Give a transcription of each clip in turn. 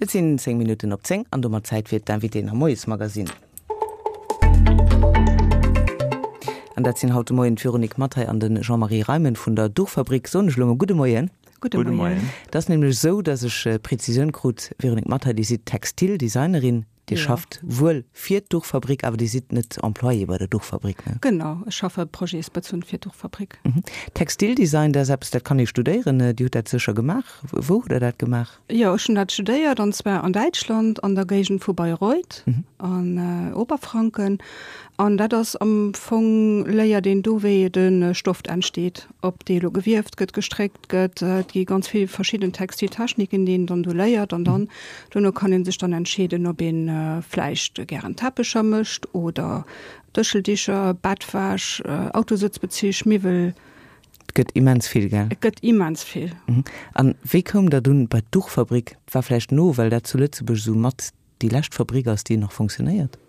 Et sinn 10 Minutten op 10 an domat Zäit fir d'Invitéen am Moiesmagazin. An dat sinn haut de Moien d'Véronique Mathay an de Jean-Marie Reimen vun der Duchfabrik. Soen ech elo mol gudde Moien. Gudde Moien. Et ass nämlech esou, dass ech Prezisioun krut, Véronique Mathay, Dir sidd Textildesignerin. Dir schafft wuel fir d'Duchfabrik, awer Dir sidd net Employée bei der Duchfabrik, ne? Genau, ech schaffe projetsbezunn fir d'Duchfabrik. Textildesign, dat ass eppes, dat kann ee studéieren. Dir hutt dat sécher gemaach. Wou hutt Der dat gemaach? Jo, ech hunn dat studéiert, an zwar an Däitschland, an der Géigend vu Bayreuth, an Oberfranken. An dat ass am Fong, léiert een do, wéi de Stoff entsteet, ob dee elo gewieft gëtt, gestréckt gëtt. Et gi ganz vill verschidden Textiltechniken, déi een dann do léiert. An dann dono kann ee sech dann entscheeden, ob ee vläicht gären Teppecher mécht oder Dëscheldicher, Bettwäsch, Autosëtzbezich, Miwwel. Et gëtt immens vill, gell? Et gëtt immens vill. An wéi koum Der dunn bei d'Duchfabrik? Et war vläicht no, well dat zu Lëtzebuerg esou mat déi lescht Fabrik ass, déi nach fonctionnéiert?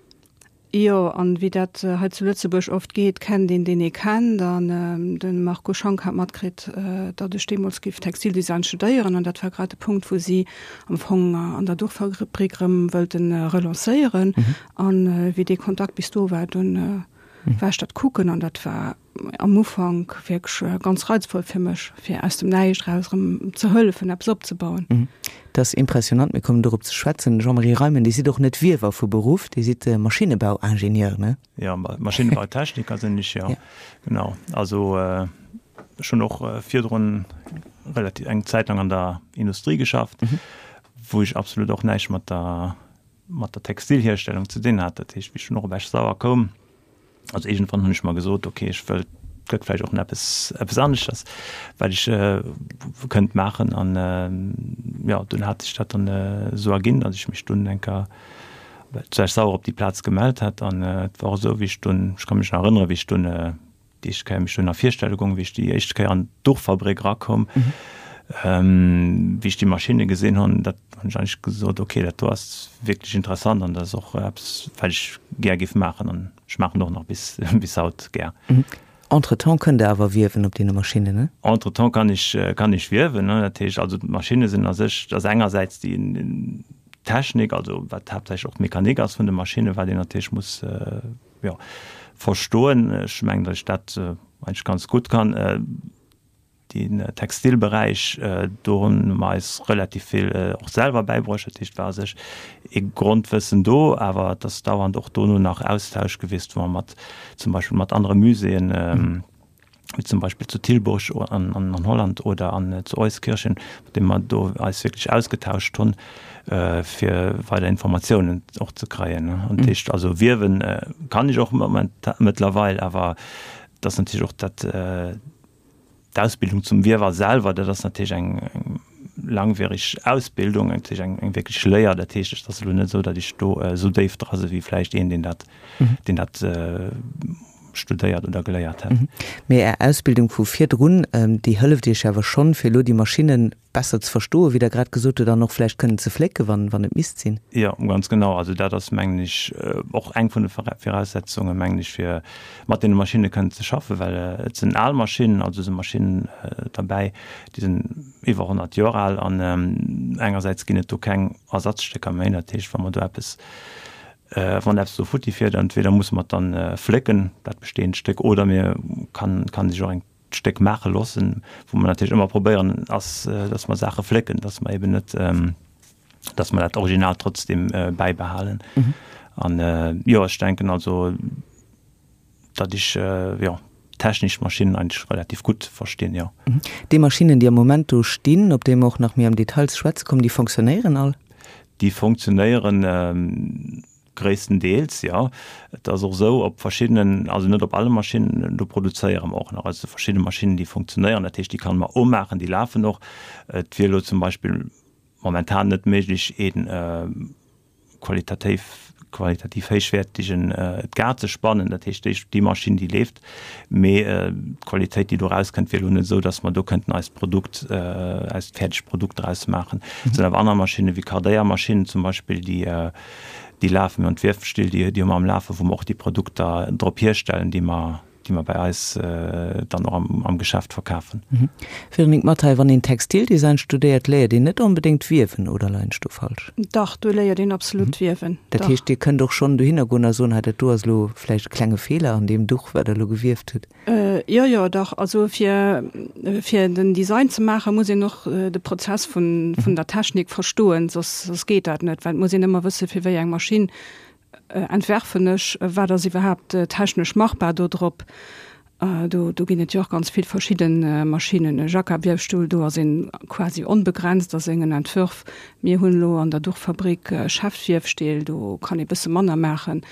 Jo, an wéi dat hei zu Lëtzebuerg oft geet, kennt een deen ee kennt. An de Marco Schank hat matkritt, datt ech deemools géif Textildesign studéieren. An dat war grad de Punkt, wou si am Fong an der Duchfabrik erëm wëllten relancéieren. An wéi dee Kontakt bis do war, dunn war ech dat kucken an dat war am Ufank wierklech ganz reizvoll fir mech, fir aus dem Näischt eraus erëm ze hëllefen, eppes opzebauen. Dat ass impressionant, mir kommen dorop ze schwätzen. Jean-Marie Reimen, Dir sidd och net Wiewer vu Beruff, Dir sidd Maschinnebauingenieur, ne? Jo, Maschinnenbautechniker sinn ech, jo, genau. Also ech hunn och virdrun relativ eng Zäit lang an der Industrie geschafft, wou ech absolut och näischt mat der mat der Textilhierstellung ze dinn hat. Dat heescht, wéi ech dunn och op Esch-Sauer koum, also iergendwann hunn ech mer gesot, okay, ech wëll, et gëtt vläicht och nach eppes, eppes aneschters, wat ech kënnt maachen. An jo, dunn hat sech dat dann esou erginn, datt ech mech dunn eng Kéier zu Esch-Sauer op déi Plaz gemellt hat. An et war och esou, wéi ech dunn, ech ka mech nach erënneren, wéi ech dunn Déi éischt Kéier mech dunn a Virstelle goung, wéi ech déi éischt Kéier an d'Duchfabrik erakoum, wéi ech déi Maschinne gesinn hunn, dat hunn ech eigentlech gesot, okay, dat do ass wierklech interessant an dat ass och eppes, wat ech gär géif maachen an ech maachen och nach bis, bis haut gär. Entretemps kënnt Der awer wiewen op deene Maschinnen, ne? Entretemps kann ech, kann ech wiewen, ne. Dat heescht also, d'Maschinne sinn a sech, dat ass engersäits déi Technik, also wat haaptsächlech och d'Mechanik ass vun de Maschinnen, wat een natierlech muss, jo, verstoen. Ech mengen, datt ech dat eigentlech ganz gutt kann. Den Textilberäich, do hunn mer eis relativ vill och selwer bäibruecht. Dat heescht, et war a sech ee Grondwëssen do, awer et ass dauernd och dono nach Austausch gewiescht, wou mer mat zum Beispill mat anere Muséeën, wéi zum Beispill zu Tilburg an Holland oder an zu Euskirchen, mat deem mer do eis wierklech ausgetauscht hunn, fir weider Informatiounen och ze kréien. An dat heescht also wiewen kann ech och mëttlerweil, awer et ass natierlech och dat d'Ausbildung zum Wiewer selwer, dat ass natierlech eng langwierig Ausbildung, natierlech eng wierklech Léier. Dat heescht, et ass elo net esou, datt ech do esou déif dra si wéi vläicht een, deen dat deen dat studéiert oder geléiert hätt. Mee Är Ausbildung vu virdrun, déi hëlleft Iech awer schonn, fir elo déi Maschinne besser ze verstoen, wéi Der grad gesot hutt, an och vläicht kënnen ze flécken, wann, wann et misst sinn? Jo, ganz genau. Also dat ass, mengen ech, och eng vun de Viraussetzungen, mengen ech, fir mat deene Maschinne kënnen ze schaffen, well et sinn al Maschinnen, also si Maschinnen derbäi, déi sinn iwwer 100 Joer al an engersäits ginn et do keng Ersatzstécker méi. Dat heescht, wa mer do eppes Wann eppes do futti fiert, entweder musse mer et dann flécken, dat bestehend Stéck, oder mir kann kann sech och eng Stéck maache loossen. Wou mer natierlech ëmmer probéieren ass, dass mer Saache flécken, dass mer eben net, dass mer dat Original trotzdem bäibehalen. An jo, ech denken also, datt ech jo technesch Maschinnen eigentlech relativ gutt verstinn, jo. Déi Maschinnen, déi am Moment do stinn, op déi mer och nach méi am Detail ze schwätze kommen, déi fonctionnéieren all? Déi fonctionnéieren gréisstendeels, jo. Et ass och esou, op verschiddenen, also net op alle Maschinnen, do produzéiere mer och nach, also verschidde Maschinnen, déi fonctionnéieren, dat heescht, déi kann mer umaachen, déi lafen och. Et wier elo zum Beispill momentan net méiglech, een qualitativ qualitativ héichwäertegen Gar ze spannen, dat heescht déi déi Maschinn déi leeft, mee d'Qualitéit déi do rauskënnt wier elo net esou, datt mer do kënnten eist Produkt eist fäerdegt Produkt draus maachen. Et sinn awer aner Maschinne wéi Kardéiermaschinnen zum Beispill déi déi lafen, mir hunn d'Wiefstill déi déi hu mer am Lafen, wou mer och déi Produkter drop hierstellen, déi mer. déi mer bei eis dann och am Geschäft verkafen. Véronique Mathay, Wann een Textildesign studéiert, léiert een net onbedéngt wiewen, oder leien ech do falsch? Dach, do léiert een absolut wiewen. Dat heescht, Dir kënnt och schonn dohinner goen a soen, hei dat do ass elo vläicht e klenge Feeler an deem Duch, wat Der elo gewieft hutt. Jo, jo, dach. Also fir, fir den Design ze maachen, muss een och de Prozess vun, vun der Technik verstoen, soss, soss geet dat net, well et muss een ëmmer wësse fir wéi eng Maschinn entwerfen ech, wat ass iwwerhaapt technesch machbar do drop. Do, do ginn et jo och ganz vill verschidde Maschinnen. E Jacquard-Wiefstuhl, do ass een quasi onbegrenzt a sengen Entwërf. Mir hunn elo an der Duchfabrik Schäftwiefstill, do kann ee bësse manner maachen.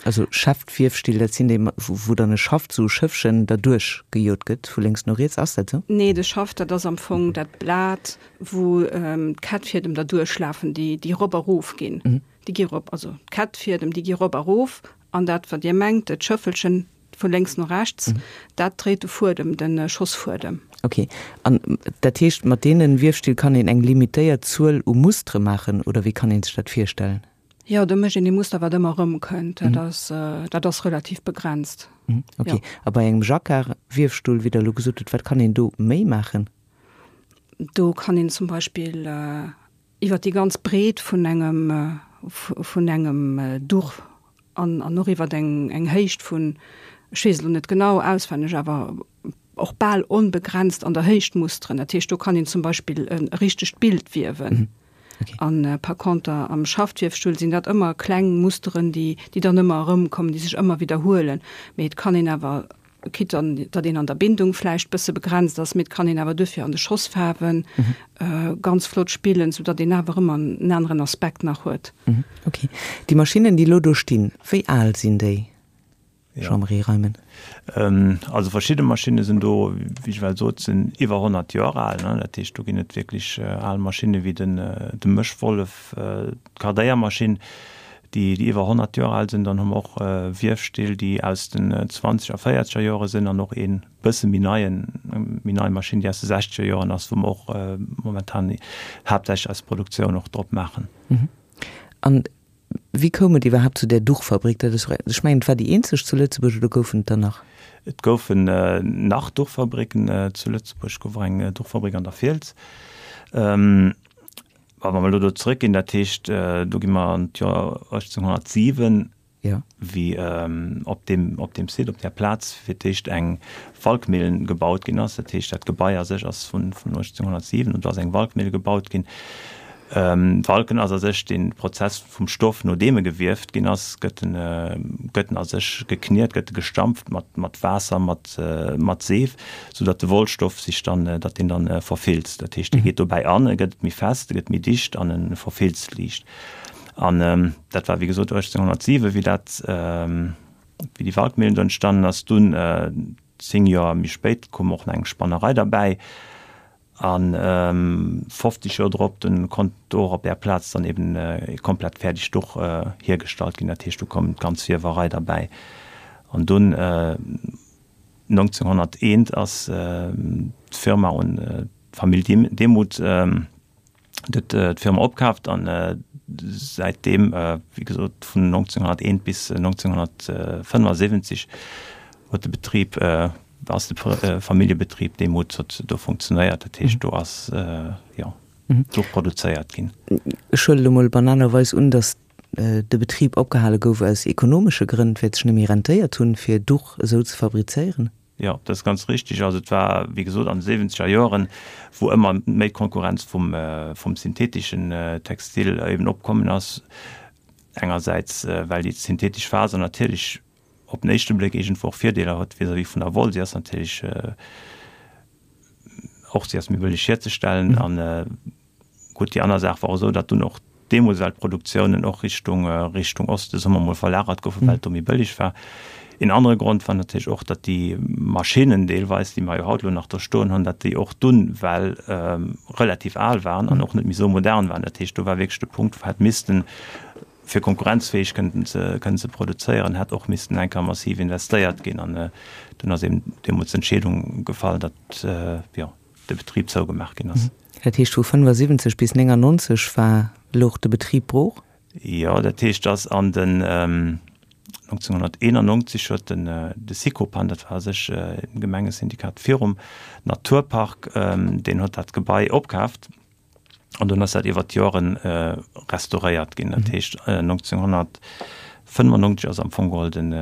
Also Schäftwiefstill, dat sinn déi, wou dann e Schaft, esou e Schëffchen, derduerch gejot gëtt, vu lénks no riets, ass dat esou? Nee, de Schaft, dat ass am Fong dat Blat, wou d'Kettfiedem derduerch lafen, déi, déi erop erof ginn. Déi gi erop, also d'Kettfiedem, déi gi erop erof an dat, wat Dir mengt, d'Schëffelchen vu lénks no rechts, dat dréit de Fuedem, de Schossfuedem. Ok. An dat heescht, mat deene Wiefstill kann een eng limitéiert Zuel u Mustere maachen, oder wéi kann ee sech dat virstellen? Jo, do mécht een ee Muster, wat ëmmer erëmkënnt. Dat ass, dat ass relativ begrenzt. Ok. A bei engem Jacquard-Wiefstull, wéi Der elo gesot hutt, wat kann een do méi maachen? Do kann een zum Beispill iwwer déi ganz Breet vun engem, vun engem Duch an, an och iwwer eng, eng Héicht vun, ech weess elo net genau auswenneg, awer och bal onbegrenzt an der Héicht musteren. Dat heescht, do kann een zum Beispill e richtegt Bild wiewen. An par conter am Schaftwiefstull sinn dat ëmmer kleng Musteren, déi, déi dann ëmmer erëmkommen, déi sech ëmmer widderhuelen. Mee et kann een awer, quitte an datt een an der Bindung vläicht bësse begrenzt ass, mee et kann een awer duerfir an de Schossfaarwe ganz flott spillen, soudatt een awer ëmmer en aneren Aspekt nach huet. Okay. Déi Maschinnen, déi elo do stinn, wéi al sinn déi? Jean-Marie Reimen. Also verschidde Maschinne sinn do, wéi ech well sot, sinn iwwer 100 Joer al. Dat heescht, do ginn et wierklech al Maschinne wéi den de Mëschwollef, d'Kardéiermaschinn, déi déi iwwer 100 Joer al sinn. Dann hu mer och Wiefstill, déi aus den zwanzeger a véierzeger Joere sinn an och ee bësse méi neien, méi nei Maschinn, déi aus de sechzeger Joren ass, wou mer och momentan haaptsächlech eis Produktioun och drop maachen. An Wéi koum et iwwerhaapt zu där Duchfabrik? Dat ass, ech mengen, et war déi eenzeg zu Lëtzebuerg, oder goufen et der nach? Et goufen nach Duchfabricken zu Lëtzebuerg. Et gouf och eng Duchfabrik an der Fiels. Wa mer elo do zrëckginn, dat heescht, do gi mer an d'Joer 1807, wéi op deem, op deem Site, op där Plaz fir d'éischt eng Walkmillen gebaut ginn ass. Dat heescht, dat Gebai a sech ass vun 1807 un, do ass eng Walkmille gebaut ginn. Walken ass a sech dee Prozess vum Stoff, nodeem e gewieft ginn ass, gëtt en, gëtt en a sech gekniet, gëtt e gestampft mat, mat Waasser, mat, mat Seef, soudatt de Wollstoff sech dann, datt deen dann verfilzt. Dat heescht, dee geet dobäi an, e gëtt méi fest, e gëtt méi dicht an e verfilzt liicht. An dat war wéi gesot 1807, wéi dat, wéi déi Walkmillen do entstanden ass. Dunn, 10 Joer méi spéit, koum och nach eng Spannerei derbäi. A 50 Joer drop, dunn konnt do och op där Plaz dann eben e komplett fäerdegt Duch hiergestallt ginn. Dat heescht, do koum d'ganz Wiewerei derbäi. An dunn 1901 ass d'Firma un d'Famill Demuth huet d'Firma opkaaft an säitdeem, wéi gesot, vun 1901 bis 1975 huet de Betrib, ass de Familljebetrib Demuth huet do funktionéiert. Dat heescht, do ass, jo, do produzéiert ginn. Ech huelen elo mol banalerweis un, datt de Betrib opgehale gouf aus ekonomesche Grënn, well et sech net méi rentéiert hunn, fir Duch esou ze fabrizéieren. Jo, dat ass ganz richtig. Also et war, wéi gesot, an de siwwenzeger Joren, wou ëmmer méi d'Konkurrenz vum, vum syntheteschen Textil eben opkommen ass. Engersäits, well déi synthetesch Faser natierlech op den éischte Bléck iergendwou och Virdeeler huet vis-à-vis vun der Woll. Si ass natierlech och, si ass méi bëlleg hierzestellen an, Gutt, déi aner Saach war och esou, datt dunn och deemools well d'Produktiounen och Richtung, Richtung Oste, soe mer mol, verlagert goufen, well et do méi bëlleg war. Een anere Grond war natierlech och, datt déi Maschinnen deelweis, déi mer jo haut elo nach do stoen hunn, datt déi och dunn well relativ al waren an och net méi esou modern waren. Dat heescht, do war wierklech de Punkt, wou hätt missten, fir konkurrenzfäeg kënnten ze, kënnen ze produzéieren, hätt och missten eng Kéier massiv investéiert ginn. An dunn ass eben deemools d'Entscheedung gefall, datt, jo, de Betrib zougemaach ginn ass. Dat heescht vu 75 bis 99 war louch de Betrib brooch? Jo, dat heescht, dass an den. 1991 huet den de Sicopan, dat war a sech e Gemengesyndikat virum Naturpark, deen huet dat Gebai opkaaft an dunn ass dat iwwer d'Joren restauréiert ginn. Dat heescht 1995 ass am Fong geholl den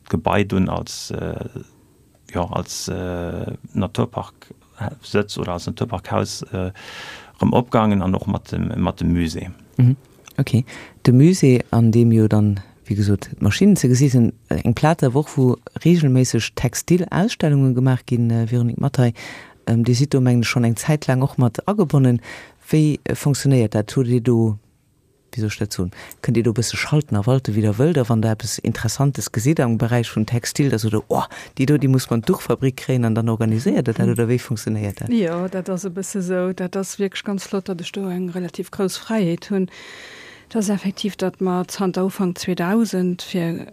d'Gebai dunn als jo als Naturpark-Sëtz oder als Naturparkhaus erëm opgaangen an och mat dem mat dem Musée. Ok, de Musée, an deem jo dann, wéi gesot, d'Maschinnen ze gesi sinn. Eng Plaz awer och, wou reegelméisseg Textil-Ausstellunge gemaach ginn. Véronique Mathay, Dir sidd do, mengen ech, schonn eng Zäit laang och mat agebonnen. Wéi fonctionnéiert dat? Hutt Dir do wéi soll ech dat soen, kënnt Dir do e bësse schalten a walten, wéi Der wëllt, a wann Der eppes Interessantes gesitt am Beräich vun Textil, da sot Der, oh, déi do, déi muss mer an d'Duchfabrik kréien, an dann organiséiert Der dat, oder wéi funktionéiert dat? Jo, dat ass e bësse sou. Dat ass wierklech ganz flott, datt ech do eng relativ grouss Fräiheet hunn. Et ass effektiv, datt mer zanter Ufank 2000 fir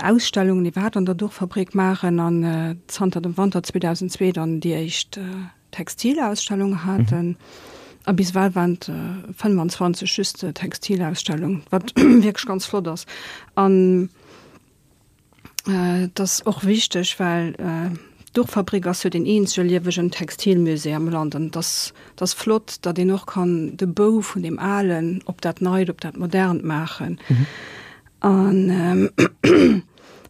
Ausstellungen iwwerhaapt an der Duchfabrik maachen an zanter dem Wanter 2002 dann déi éischt Textilausstellung haten. A bis ewell waren et 25 just Textilausstellungen, wat wierklech ganz flott ass. An et ass och wichteg, well d'Duchfabrik ass jo deen eenzege liewegen Textilmusée am Land. An et ass, et ass flott, datt een och kann de Bou vun deem Alen op dat Neit, op dat Modernt maachen. An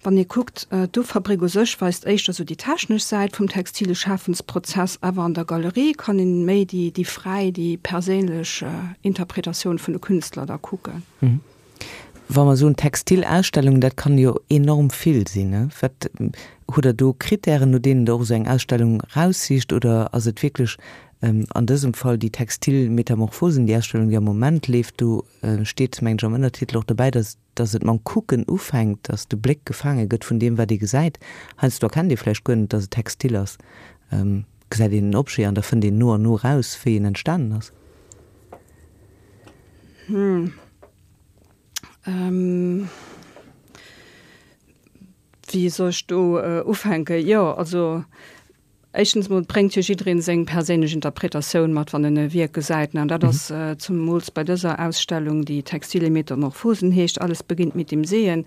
wann ee kuckt, d'Duchfabrik u sech weist éischter sou déi technesch Säit vum textile Schafensprozess, awer an der Galerie kann een méi déi, déi fräi, déi perséinlech Interpretatioun vun de Künstler da kucken. Wa mer soen Textilausstellung, dat kann jo enorm vill sinn, ne? Wat, hutt Der do Krittären, no deenen Der och esou eng Ausstellung raussicht, oder ass et wierklech an dësem Fall déi Textil Metamorphosen, déi Ausstellung, déi am Moment leeft, do steet, mengen ech, am Ënnertitel och dobäi, dass, dass et mam Kucken ufänkt, dass de Bléck gefaange gëtt vun deem, wat ee gesäit. Heiansdo erkennt ee vläicht guer net, dass et Textil ass, gesäit een en Objet an da fënnt een no an no raus, wéi en entstanen ass. Hm. Wéi soll ech do ufänken? Jo, also Éischtens mol bréngt jo jiddereen seng perséinlech Interpretatioun mat, wann en e Wierk gesäit. An dat ass zemools bei dëser Ausstellung, déi Textile Metamorphosen heescht, Alles beginnt mit dem Sehen.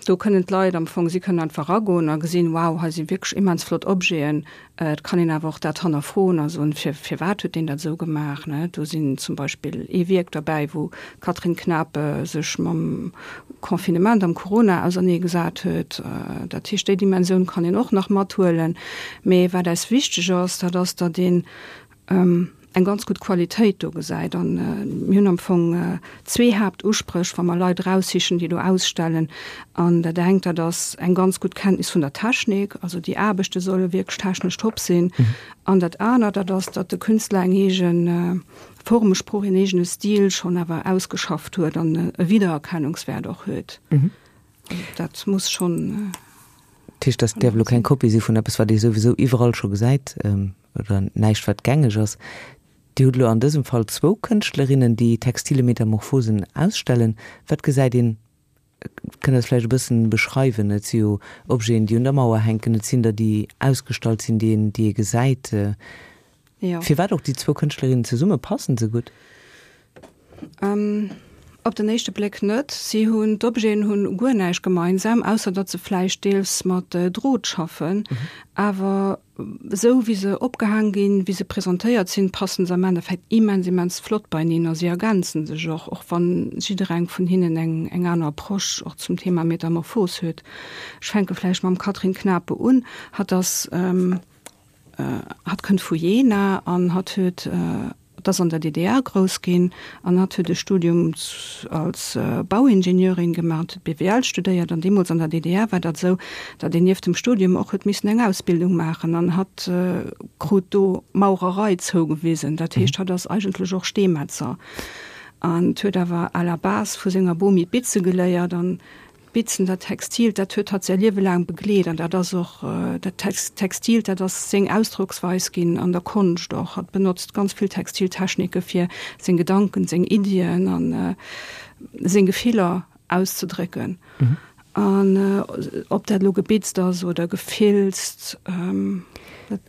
Do kënnen d'Leit am Fong, si kënnen einfach eragoen a gesinn, wow, hei si wierklech immens flott Objeten. Et kann een awer och dat hannerfroen a soen, fir, firwat huet deen dat esou gemaach, ne? Do sinn zum Beispill ee Wierk derbäi, wou d'Catherine Knape sech mam Confinement am Corona ausernee gesat huet. Dat heescht, déi Dimensioun kann een och nach mathuelen. Mee wat eis wichteg ass, dat ass, datt een eng ganz gutt Qualitéit do gesäit. An mir hunn am Fong zwee Haaptuspréch, wa mer Leit eraussichen, déi do ausstellen. An dat engt, dat ass eng ganz gutt Kenntnis vun der Technik, also déi Aarbechte solle wierklech technesch top sinn. An dat anert, dat ass, datt de Künstler eng eege Formesprooch, een eegene Stil schonn awer ausgeschafft huet an e Wiedererkennungswäert och huet. Dat muss schonn. Dat heescht, dat däerf elo keng Kopie si vun eppes, wat ee souwisou iwwerall scho gesäit oder näischt, wat gängeg ass. Dir hutt elo an dësem Fall zwou Kënschtlerinnen, déi Textile Metamorphosen ausstellen. Wat gesäit een Kënnt Der et vläicht e bëssen beschreiwen? Et si jo Objeten, déi un der Mauer hänken, et sinn der, déi ausgestallt sinn, déi een, déi ee gesäit. Jo. Firwat och déi zwou Kënschtlerinnen zesumme? Passen se gutt? Op den éischte Bléck net. Si hunn, d'Objeten hunn guer näischt gemeinsam, ausser datt se vläicht deels mat Drot schaffen. Awer Esou wéi se opgehaang ginn, wéi se presentéiert sinn, passen se am Endeffekt immens, immens flott beineen a si ergänzen sech och, och wann jiddereng vun hinnen eng, eng aner Approche och zum Thema Metamorphos huet. Ech fänke vläicht mam Catherine Knape un. Hatt ass, hatt kënnt vu Jena an hatt huet, Hatt ass an der DDR grouss ginn an hatt huet e Studium als Bauingenieurin gemaach an huet BWL studéiert. An deemools an der DDR war dat esou, datt een nieft dem Studium och huet missen eng Ausbildung maachen an hatt krut do Maurerei zougewisen. Dat heescht, hatt ass eigentlech och Steemetzer an huet awer à la base vu senger Bomi d'Bitze geléiert an D'Bitzen, dat Textilt, dat huet hatt säi Liewe laang begleet an dat ass och dat Textilt, dat ass seng Ausdrocksweis ginn an der Konscht och. Hatt benotzt ganz vill Textiltechnike fir seng Gedanken, seng Iddien a seng Gefiller auszedrécken. An ob dat elo gebitzt ass oder gefilzt, dat.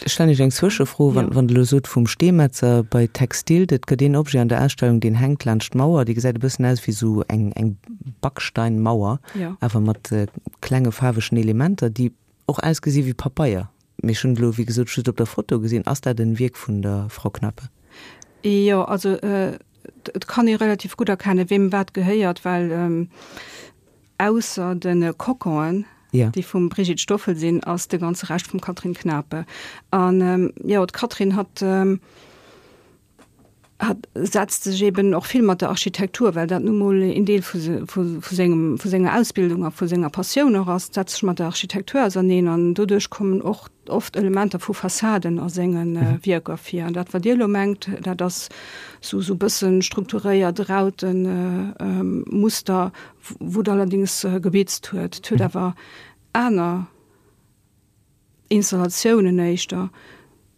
Ech stellen Iech eng Zwëschefro, wann Der elo sot vum Steemetzer bei Textil, et gëtt een Objet an der Ausstellung, deen hänkt laanscht d'Mauer, dee gesäit e bëssen aus wéi esou eng eng Backsteinmauer, awer mat klenge faarwegen Elementer, déi och ausgesi wéi Papeier. Mee ech hunn et elo, wéi gesot, just op der Foto gesinn. Ass dat en Wierk vun der Frau Knape? Jo, also et kann ee relativ gutt erkennen, weem wat gehéiert, well Ausser de Coconen, déi vum Brigitte Stoffel sinn, ass de ganze Rescht vum Catherine Knape. An jo, d'Catherine hat hat setzt sech eben och vill mat der Architektur, well dat nu mol een Deel vu vu sengem vu senger Ausbildung a vu senger Passioun och ass, setzt sech mat der Architektur auserneen an doduerch kommen och oft Elementer vu Fassaden a senge Wierker vir. An dat wat Dir elo mengt, dat ass sou sou bëssen strukturéiert Rautenmuster, wou et allerdings gebitzt huet. Et huet awer aner Installatiounen éischter,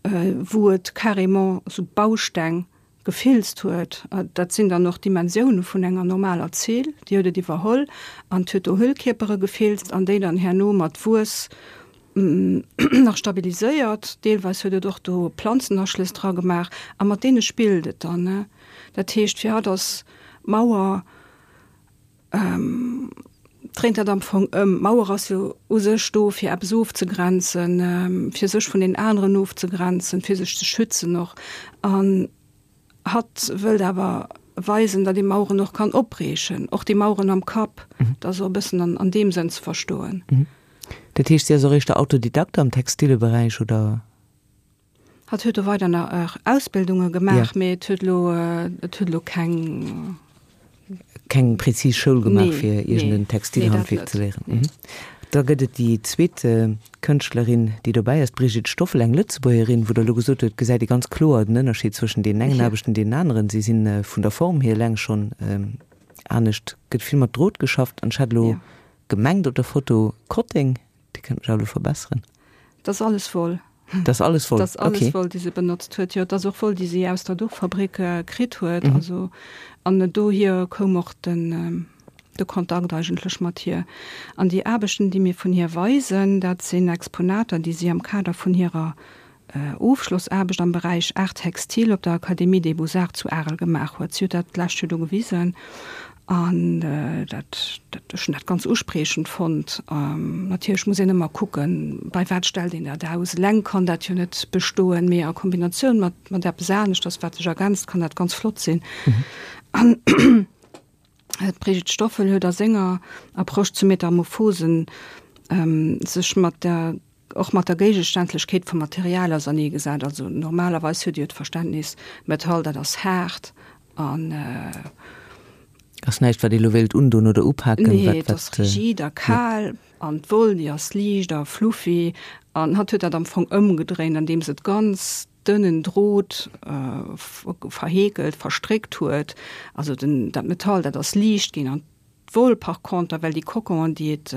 wou et carrément sou Bausteng gefilzt huet. Dat sinn dann och Dimensioune vun enger normaler Zeel, déi huet et iwwerholl an huet do Hüllkierpere gefilzt an déi dann herno mat Wuess nach stabiliséiert. Deelweis huet et och do Planzenaschlëss dra gemaach a mat deene spillt et dann. Dat heescht, fir hatt ass d'Mauer, dréint dat am Fong ëm. D'Mauer ass jo u sech do, fir eppes ofzegrenzen, fir sech vun den aneren ofzegrenzen, fir sech ze schützen och. An hatt wëllt awer weisen, datt ee Maueren och kann opbriechen, och déi Maueren am Kapp. Dat ass och e bëssen an deem Sënn ze verstoen. Dat heescht, si ass och éischter Autodidakte am Textileberäich, oder? Hatt huet do weider nach Ausbildunge gemaach, mee et huet elo, et huet elo keng. Keng prezis Schoul gemaach, fir iergend en Textilhandwierk ze léieren. Da gëtt et déi zweet Kënschtlerin, déi dobäi ass, d'Brigitte Stoffel, eng Lëtzebuergerin, wou Der elo gesot hutt, et gesäit ee ganz kloer den Ënnerscheed zwëschen deenen engen Aarbechten an deenen aneren. Si si vun der Form hier eleng schonn anescht. Gëtt vill mat Drot geschafft an ech hat elo gemengt op der Foto Kotteng. Dir kënnt mech awer elo verbesseren. Dat ass alles Woll. Dat ass alles Woll, okay. Dat ass alles Woll, déi se benotzt huet. Jo, dat ass och Woll, déi si aus der Duchfabrik kritt huet. Also, an dohier koum och den, de Kontakt eigentlech mat hir. An déi Aarbechten, déi mir vun hir weisen, dat sinn Exponater, déi si am Kader vun hirer Ofschlossaarbecht am Beräich Art textile op der Académie des Beaux-Arts zu Arel gemaach huet. Si huet dat d'lescht Joer do gewisen an dat, ech hunn dat ganz uspriechend fonnt. Natierlech muss een ëmmer kucken, bei wat stellt een dat aus. Eleng kann dat jo net bestoen, mee a Kombinatioun mat, mat eppes aneschters, wat sech ergänzt, kann dat ganz flott sinn. An d'Brigitte Stoffel huet a senger Approche zu Metamorphosen sech mat der och mat der Géigeständlechkeet vum Material auserneegesat. Also normalerweis huet Dir jo d'Verständnis, Metall, dat ass haart an. Ass näischt, wat ee lo wéilt undoen oder upaken. Nee, et ass rigid a kal. An d'Woll, déi ass liicht a fluffy. An hatt huet dat am Fong ëmgedréint, andeems et ganz dënnen Drot verheekelt, verstréckt huet. Also den, dat Metall, dat ass liicht ginn an D'Woll par conter, well déi Coconen, déi et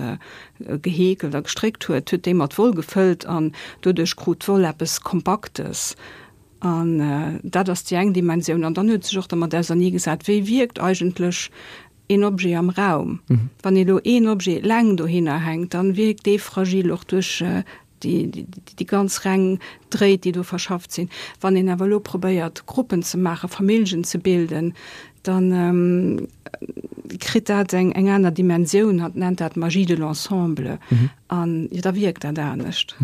geheekelt a gestréckt huet, huet déi mat Woll gefëllt an doduerch krut d'Woll eppes Kompaktes. An dat ass déi eng Dimensioun. An dann huet sech och dermat auserneegesat, wéi wierkt eigentlech een Objet am Raum. Wann ee lo een Objet eleng dohinner hänkt, dann wierkt dee fragil och duerch déi ganz reng Dréit, déi do verschafft sinn. Wann een awer elo probéiert, Gruppen ze maachen, Familljen ze bilden, da kritt dat eng aner Dimensioun. Hatt nennt dat Magie de l'ensemble. An jo, da wierkt dat anescht.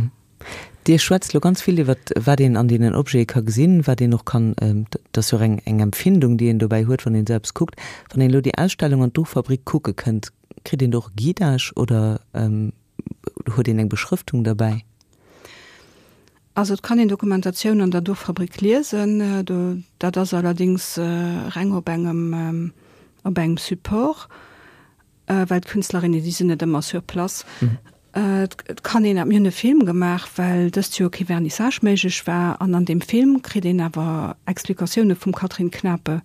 Dir schwätzt elo ganz vill iwwer wat een an deenen Objete ka gesinn, wat een och kann, dat ass jo och eng Empfindung, déi een dobäi huet, wann een esou eppes kuckt. Wann een elo déi Ausstellung an d'Duchfabrik kucke kënnt, kritt een do och e Guidage oder Huet een eng Beschrëftung derbäi? Also et kann een Dokumentatioun an der Duchfabrik liesen. Dat ass allerdéngs reng op engem op engem Support, well d'Künstlerinnen, déi sinn net ëmmer sur place. Et kann een, mir hunn e Film gemaach, well dëst Joer kee Vernissage méiglech war, an an deem Film kritt een awer Explikatioune vum Catherine Knape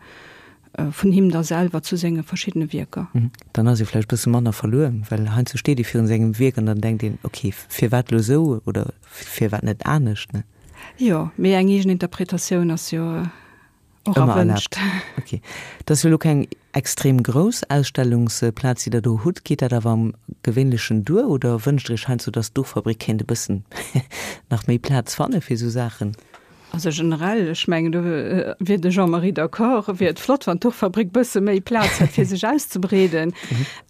Vun him da selwer zu senge verschiddene Wierker. Dann ass ee vläicht e bësse manner verluer, well heiansdo steet ee virun sengem Wierk an dann denkt een, ok, firwat elo esou oder firwat net anescht, ne? Jo, mee eng eegen Interpretatioun ass jo. Och erwënscht. Ok. Dat ass jo elo keng extrem grouss Ausstellungsplaz, déi Der do hutt. Geet dat awer am Gewéinlechen duer oder wënscht Der Iech heiansdo, datt d'Duchfabrik kéint e bëssen nach méi Plaz fanne fir esou Saachen? Also generell, ech mengen, do wier de Jean-Marie d'accord, wier et flott, wann d'Duchfabrik bësse méi Plaz hätt, fir sech auszebreeden.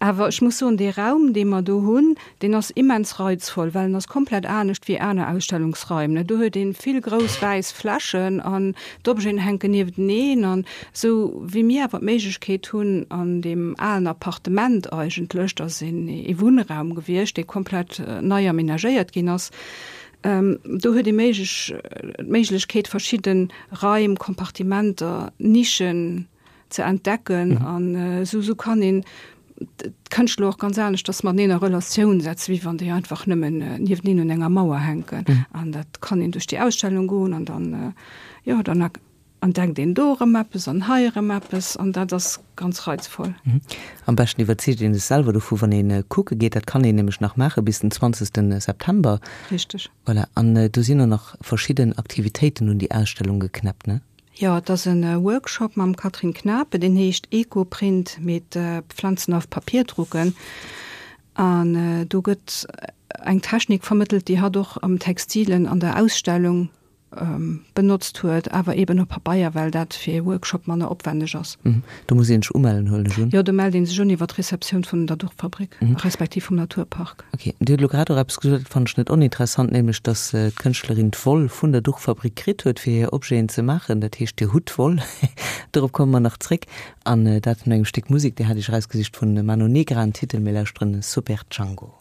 Awer ech muss soen, dee Raum, dee mer do hunn, Deen ass immens reizvoll, well en ass komplett anescht wéi aner Ausstellungsraim. Do huet een vill grouss wäiss Flächen an d'Objeten hänken niefteneen. An esou wéi mir awer d'Méiglechkeet hunn an deem alen Appartement eigentlech, dat ass een ee Wunnraum gewiescht, dee komplett nei amenagéiert ginn ass, do huet ee méiglech d'Méiglechkeet verschidde Raim, Kompartimenter, Nischen, ze entdecken an esou esou kann een d'Kënschtler och ganz aneschters mateneen a Relatioun setzen, wéi wann déi einfach nëmmen nieweneen un enger Mauer hänken. An dat kann een duerch déi Ausstellung goen an dann, jo, dann entdeckt een do erëm eppes an hei erëm eppes an dat ass ganz reizvoll. Am beschten iwwerzeegt een sech selwer dovu wann ee kucke geet. Dat kann een nämlech nach maache bis den 20 September. Richteg. Voilà, an do sinn och nach verschidden Aktivitéiten un déi Ausstellung geknäppt, ne? Jo, et ass e Workshop mam Catherine Knape, deen heescht Ecoprint mit Pflanzen auf Papier drucken. An do gëtt eng Technik vermëttelt, déi hatt och am Textilen an der Ausstellung benotzt huet, awer eeben op Pabeier, well dat fir ee Workshop manner opwänneg ass. Do muss een sech umellen, huelen ech un? Jo, do mellt ee sech un iwwer d'Receptioun vun der Duchfabrik, respektiv vum Naturpark. Ok, Dir hutt elo grad och eppes gesot, dat fannen ech net oninteressant, nämlech datt d'Kënschtlerin d'Woll vun der Duchfabrik kritt huet, fir hir Objeten ze maachen. Dat heescht, Dir hutt d'Woll. Dorop komme mer nach zréck. An dat no engem Stéck Musek, Dir hat Iech erausgesicht vun Mano Negra en Titel, mir lauschteren Super Django.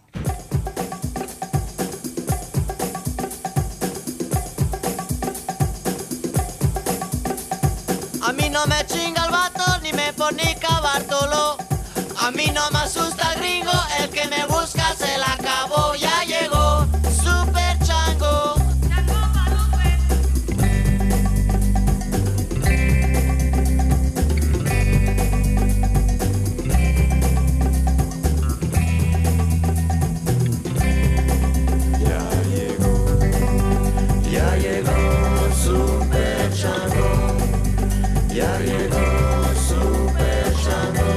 A mí no me chinga el vato ni me fornica Bartolo A mí no me asusta gringo, el que me busca se la acabó, ya llegó Super Chango. Ya llegó, ya llegó Super Chango, ya llegó Super Chango,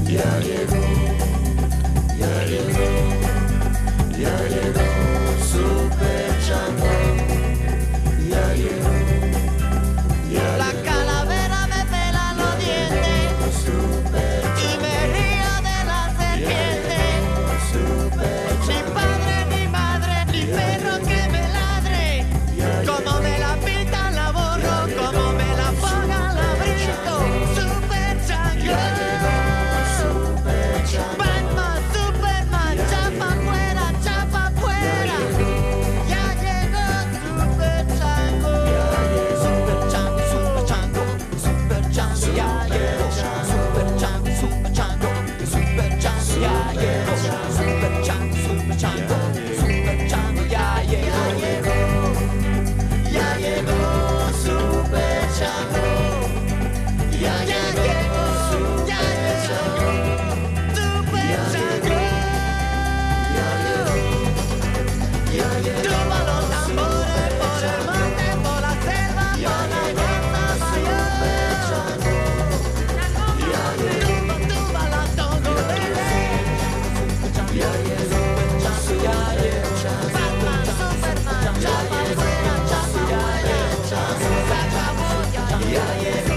ya llegó, ya llegó, ya llegó Super Chango, ya llegó, ya La calavera me pela los dientes y me río de la serpiente. Ni padre, ni madre, ni perro que me ladre. Como me la pintan la borro, como me la pongan la brinco. Super Chango. Batman, Superman, chapa fuera, chapa fuera. Ya llegó Super Chango. Super Chango, Super Chango, Super Chango, ya llegó. Super Chango, Super Chango, Super Chango, ya llegó. Super Chango, Super Chango, Super Chango, ya llegó. Ya llegó Super Chango. Ya llegó, ya llegó Super Chango. Tumba los tambores por el monte, por la selva, por la plaza mayor. Tumba, tumba la tongolele. Batman, Superman, chapa fuera, chapa fuera. Se acabó, ya llegó.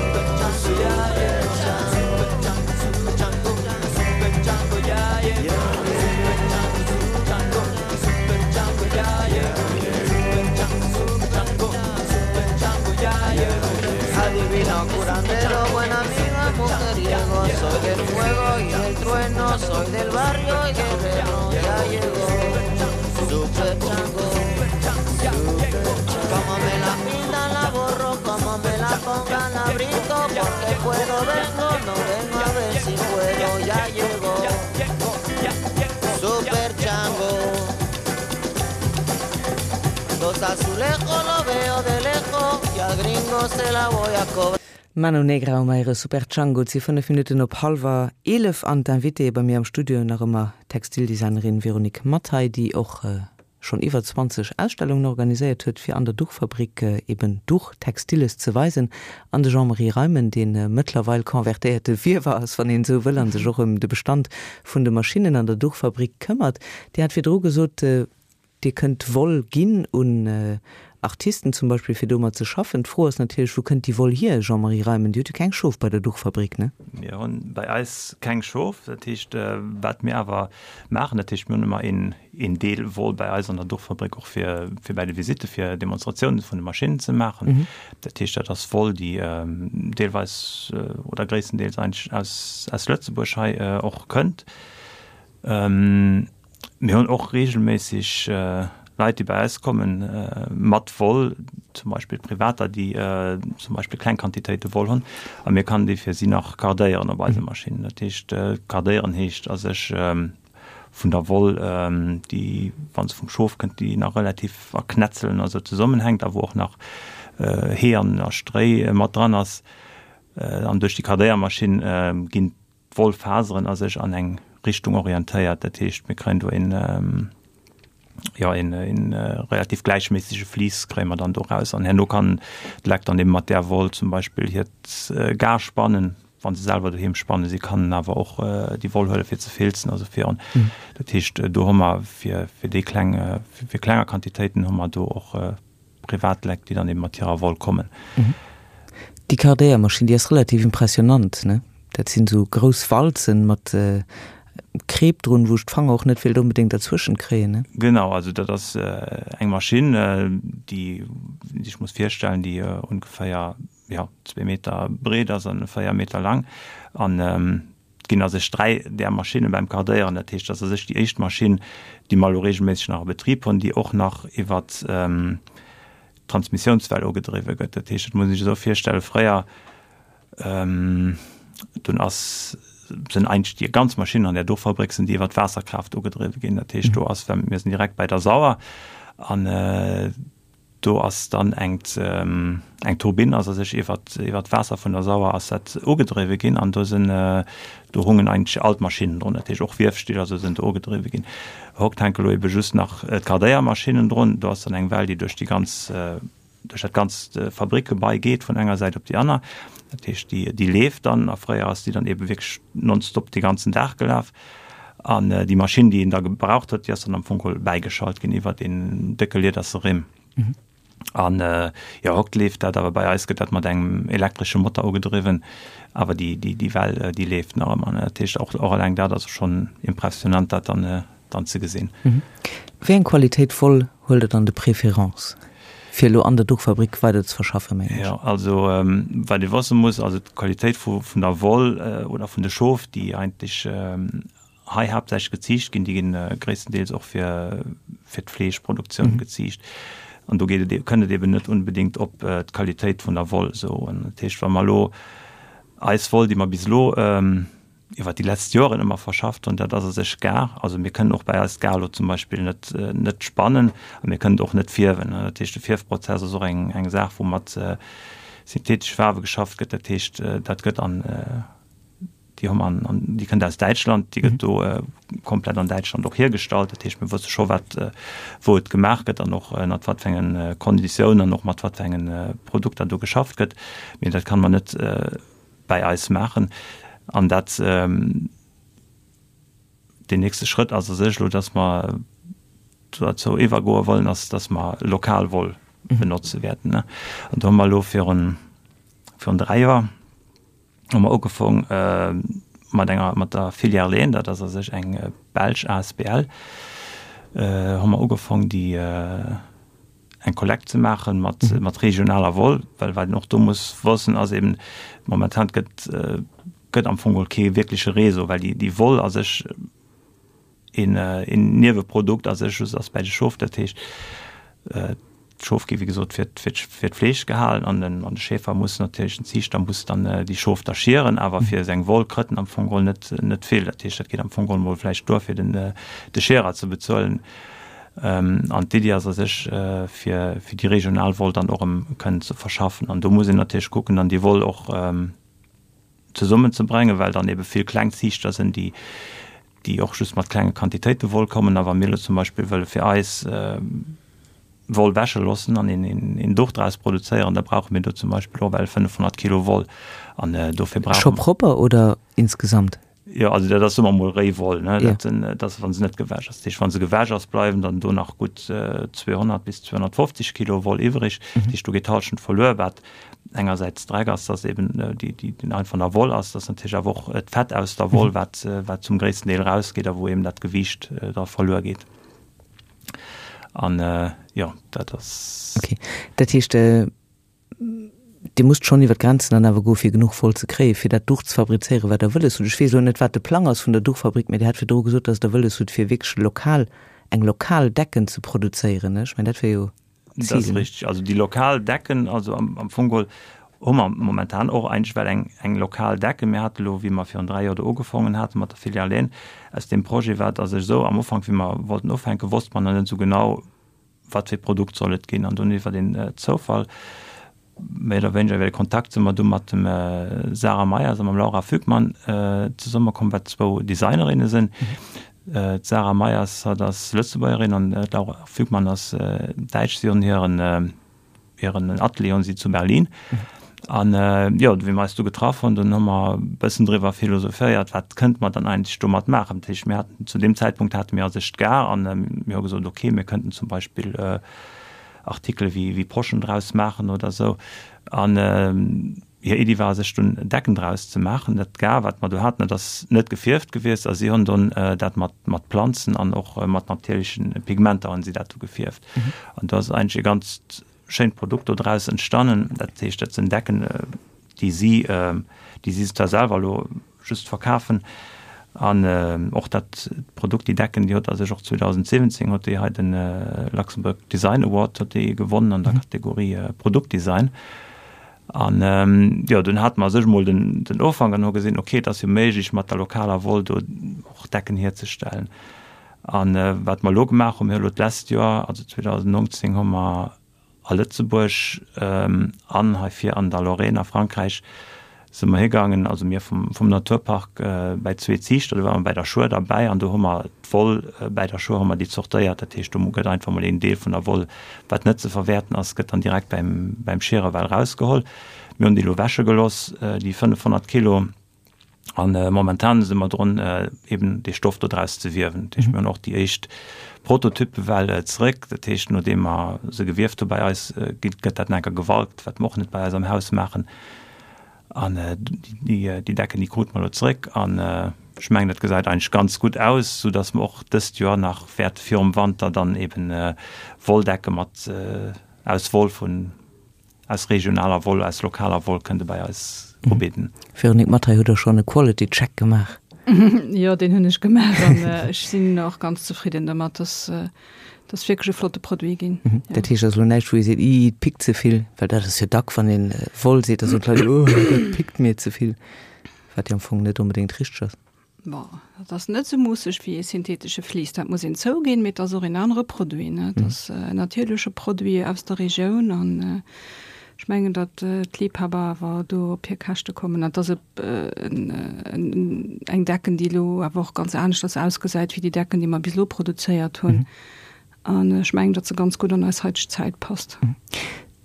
Adivino, curandero, buen amigo, mujeriego Soy del fuego y del trueno, soy del barrio y guerrero Ya llegó, super chango Como me la pintan la borro, como me la pongan la brinco Porque puedo, vengo, no vengo a ver si puedo Ya llegó, super chango Los azulejos lo veo de lejos y al gringo se la voy a cobrar. Mano Negra um Aire Super Django. Et si 5 Minutten op hallwer 11 an d'Invitée bei mir am Studio nach ëmmer d'Textildesignerin Véronique Mathay, déi och. schonn iwwer 20 Ausstellungen organiséiert huet, fir an der Duchfabrik eben Duch, Textiles ze weisen, an de Jean-Marie Reimen, dee mëttlerweil convertéierte Wiewer ass, wann een esou wëll, a sech och ëm de Bestand vun de Maschinnen an der Duchfabrik këmmert. Dir hat virdru gesot, Dir kënnt Woll ginn un Artisten zum Beispill, fir domat ze schaffen. D'Fro ass natierlech, Wou kënnt déi Woll hier, Jean-Marie Reimen? Dir hutt jo keng Schof bei der Duchfabrik, ne? Mir hunn bei eis keng Schof. Dat heescht, wat mir awer maachen, dat heescht, mir hunn ëmmer een, een Deel Woll bei eis an der Duchfabrik och fir, fir bei de Visitte fir Demonstratiounen vun de Maschinnen ze maachen. Dat heescht, dat ass Woll, déi deelweis oder gréisstendeels eigentlech aus, aus Lëtzebuerg hei och kënnt. Mir hunn och reegelméisseg Leit, déi bei eis kommen mat Woll, zum Beispill Privater, déi zum Beispill kleng Quantitéite Woll hunn, a mir kann déi fir si nach kardéieren op eise Maschinnen. Dat heescht, kardéieren heescht a sech vun der Woll, déi, wa se vum Schof kënnt, déi nach relativ a Knätzelen a sou zesummenhänkt a wou och nach Hee an a Stréi mat dran ass. An duerch déi Kardéiermaschinn ginn d'Wollfaseren a sech an eng Richtung orientéiert. Dat heescht, mir kréien do een, jo, een, een relativ gläichméissege Vlies kréie mer dann do raus. An herno kann d'Leck dann eben mat där Woll zum Beispill hiert Gar spannen, wa se selwer doheem spannen. Si kannen awer och déi Woll huele fir ze filzen, also fir, dat heescht, do hu mer fir, fir déi kleng, fir klenger Quantitéiten hu mer do och Privatleck, déi dann eben mat hirer Woll kommen. Déi Kardéiermaschinn, déi ass relativ impressionant, ne? Dat sinn esou grouss Walzen mat Kreep drun, wou ech d'Fanger och net wéilt onbedéngt derzwëschent kréien, ne? Genau, also dat ass eng Maschinn, déi een sech muss virstellen, déi ongeféier, jo, zwee Meter breet ass an 4 Meter laang. An et ginn a sech 3 där Maschinne beim Kardéieren. Dat heescht, dat ass a sech déi éischt Maschinn, déi mer elo reegelméisseg nach a Betrib hunn, déi och nach iwwer d'Transmissiounswell ugedriwwe gëtt. Dat heescht, dat muss een sech esou virstellen, fréier, dunn ass, sinn eigentlech déi ganz Maschinnen an där do Fabrik sinn déi iwwer d'Waasserkraaft ugedriwwe ginn. Dat heescht, do ass, mir sinn direkt bei der Sauer an Do ass dann eng eng Turbinn ass a sech iwwer iwwer d'Waasser vun der Sauer ass dat ugedriwwe ginn an do sinn do hungen eigentlech all d'Maschinnen drun, dat heescht och Wiefstill a sou sinn do ugedriwwe ginn. Hokt hänke lo ebe just nach d'Kardéiermaschinnen drun. Do ass dann eng Well, déi duerch déi ganz duerch dat ganzt Fabrikgebai geet vun enger Säit op déi aner. Dat heescht déi déi leeft dann a fréier ass déi dann ebe wierklech nonstop dee ganzen Dag gelaf. An déi Maschinn, déi een da gebraucht huet, déi ass dann am Fong geholl bäigeschalt ginn iwwer een décke liederse Rimm. An jo, hokt leeft dat, awer bei eis gëtt dat mat engem elektresche Motor ugedriwwen. Awer déi, déi, déi Well, déi leeft nach ëmmer. Dat heescht, och, och eleng dat ass schonn impressionant, dat dann, dann ze gesinn. Wéi eng Qualitéit Woll huelt Der dann de préférence, fir elo an der Duchfabrik weider ze verschaffen, mengen ech? Jo, also wat ee wësse muss, also d'Qualitéit vu vun der Woll oder vun de Schof, déi eigentlech hei haaptsächlech geziicht ginn, déi ginn gréisstendeels och fir fir d'Fleeschproduktioun geziicht. An do geet et, kënnt et eben net unbedéngt op d'Qualitéit vun der Woll esou un. Dat heescht, wa mer elo eis Woll, déi mer bis elo iwwer déi letzt Joren ëmmer verschafft hunn, dat ass a sech Gar. Also mir kënnen och bei eis d'Gar elo zum Beispill net, net spannen a mir kënnen et och net fierwen. Dat heescht, de Fierfprozess ass och eng, eng Saach, wou mat syntheetesche Faarwe geschafft gëtt. Dat heescht, dat gëtt an, déi hu mer an, an déi kënnt aus Däitschland, déi gëtt do komplett an Däitschland och hiergestallt. Dat heescht, mir wësse scho wat, wou et gemaach gëtt an och ënnert wat fir engen Konditiounen an och mat wat fir engen Produkter do geschafft gëtt. Mee dat kann mer net bäi eis maachen. An dat, deen nächste Schrëtt ass a sech elo, dass mer dozou iwwergoe wollen, ass, dass mer lokal Woll benotze wäerten. An do hu mer elo virun, virun 3 Joer hu mer ugefong mat enger, mat der Filière Leen, dat ass a sech eng belsch asbl, hu mer ugefong déi, eng Kollekt ze maachen mat, mat regionaler Woll, well wat een och do muss wëssen ass eben, momentan gëtt, gëtt am Fong geholl kee wierkleche Réseau, well déi, déi Woll a sech een, een Nieweprodukt a sech just ass bäi de Schof. Dat heescht, d'Schof gi wéi gesot fir, fir, fir d'Fleesch gehalen an den, an de Schäfer muss natierlech, den Ziichter muss dann déi Schof da schieren, awer fir seng Woll krëtt en am Fong geholl net, net vill. Dat heescht, dat geet am Fong geholl mol vläicht duer fir den, de Schierer ze bezuelen. An d'Iddi ass a sech, fir déi regional Woll dann och erëm kënnen ze verschaffen. An do muss een natierlech kucken, dann déi Woll och zesummenzebréngen, well dann ebe vill kleng Ziichter sinn, déi. déi och just mat klenge Quantitéite Woll kommen. A wa mir elo zum Beispill wëlle fir eis Woll wäsche loossen an een Duch draus produzéieren, da brauche mir do zum Beispill och well 500 Kilo Woll. An dofir brauche. Scho propper oder insgesamt? Jo, also dat ass soe mer mol réi Woll, ne? Dat sinn, dat ass wa se net gewäsch ass. Dat heescht, wa se gewäsch ass, bleiwen dann do nach gutt 200 bis 250 Kilo Woll iwwreg. Dat heescht, do geet d'Hallschent verluer, wat engersäits Dreck ass, dass eben déi, déi den einfach nach Woll ass, dass natierlech awer och d'Fett aus der Woll, wat, wat zum gréissten Deel rausgeet a wou eben dat Gewiicht da verluer geet. An jo, dat ass. Okay, dat heescht, Dir musst schonn iwwer d'Grenzen dann awer goe fir genuch Woll ze kréien, fir dat Duch ze fabrizéieren, wat Der wëlles hutt. Ech weess elo net, wat de Plang ass vun der Duchfabrik, mä Dir hat virdru gesot, datt Der wëlles hutt, fir wierklech lokal, eng lokal Decken ze produzéieren. Ech mengen, dat wär jo d'Zil. Dat ass richteg. Also déi lokal Decken, also am Fong geholl hu mer momentan och eigentlech well eng, eng lokal Decken. Mir hate lo, wéi mer virun 3 Joer do ugefongen hate mat der Filiale, aus deem Projet war et a sech esou, am Ufank, wéi mer wollten ufänken, wosste mer nach net esou genau, wat fir e Produkt soll et ginn? An dunn iwwer een Zoufall, méi oder wéineger iwwer e Kontakt, si mer du mat dem Sarah Meyers a mam Laura Fügmann zesummekomm, wat zwou Designerinne sinn. D'Sarah Meyers, hatt ass Lëtzebuergerin an d'Laura Fügmann ass Däitsch. Si hunn hiren Hiren Atelier hunn si zu Berlin. An jo, wéi mer eis du getraff hunn, dunn hu mer e bëssen driwwer philosophéiert, wat kënnte mer dann eigentlech domat maachen. Dat heescht, mir haten zu deem Zäitpunkt hate mir a sech d'Gare an mir hu gesot, okay, mir kënnten zum Beispill Artikele wéi wéi Poschen draus maachen oder esou. An hir Iddi war a sech dunn Decken draus ze maachen. Dat Gar, wat mer do haten, dat ass net gefierft gewiescht a si hunn dunn dat mat mat Planzen an och mat natierlechen Pigmenter hunn si dat du gefierft. An do ass eigentlech e ganzt schéint Produkt do draus entstannen. Dat heescht, dat sinn Decken, déi si, déi si zwar selwer elo just verkafen. An och dat Produkt, déi Decken, déi huet a sech och 2017 huet déi hei de Luxembourg Design Award huet déi gewonnen an der Kategorie Produktdesign. An jo, dunn hate mer a sech emol den, den Ufank an hu gesinn, okay, et ass jo méiglech mat der lokaler Woll do och Decken hierzestellen. An wat mer elo gemaach hunn, mir hu elo d'lescht Joer, also 2019, hu mer a Lëtzebuerg an hei vir an der Lorraine a Frankräich si mer higaangen, also mir vum, vum Naturpark bäi zwee Ziichter, do ware mer bäi der Schuer derbäi an do hu mer d'Woll bäi der Schuer hu mer déi zortéiert. Dat heescht, do gëtt einfach mol een Deel vun der Woll, wat net ze verwäerten ass, gëtt dann direkt bäim, bäim Schiere well rausgeholl. Mir hunn déi elo wäsche gelooss, déi 500 Kilo. An momentan si mer drun, eben dee Stoff do draus ze wiewen. Dat heescht, mir hunn och déi éischt Prototyppe well zeréck. Dat heescht, nodeem mer se gewieft hu bei eis, gëtt dat nach eng Kéier gewalkt, wat mer och net bei eis am Haus maachen. An déi Decken, déi krute mer elo zeréck. An ech mengen, dat gesäit eigentlech ganz gutt aus, soudass mer och dëst Joer nach wäerte virum Wanter dann eben Wolldecke mat aus Woll vun Aus regionaler Woll, aus lokaler Woll kënnt e bei eis ubidden. Véronique Mathay, hutt Der schonn e Quality Check gemaach? Jo, deen hunn ech gemaach an ech sinn och ganz zefridden domat. Dass ass wierklech e flotte Produit ginn. Dat heescht, ass elo näischt, wou ee seet, Ih, et pickt ze vill? Well dat ass jo dack, wann ee Woll seet, da soen d'Leit, Oh, dat pickt mir ze vill. Wat jo am Fong net onbedéngt richteg ass. Bon, dat ass net esou muusseg wéi ee syntheetesche Vlies, dat muss een zouginn, mee et ass och een anere Produit, ne? Et ass en natierleche Produit aus der Regioun an ech mengen, datt d'Liebhaber awer do op hir Käschte kommen. An et ass eng Decken, déi elo awer och ganz aneschters ausgesäit wéi déi Decken, déi mer bis elo produzéiert hunn. An ech mengen, datt se ganz gutt an eis haiteg Zäit passt.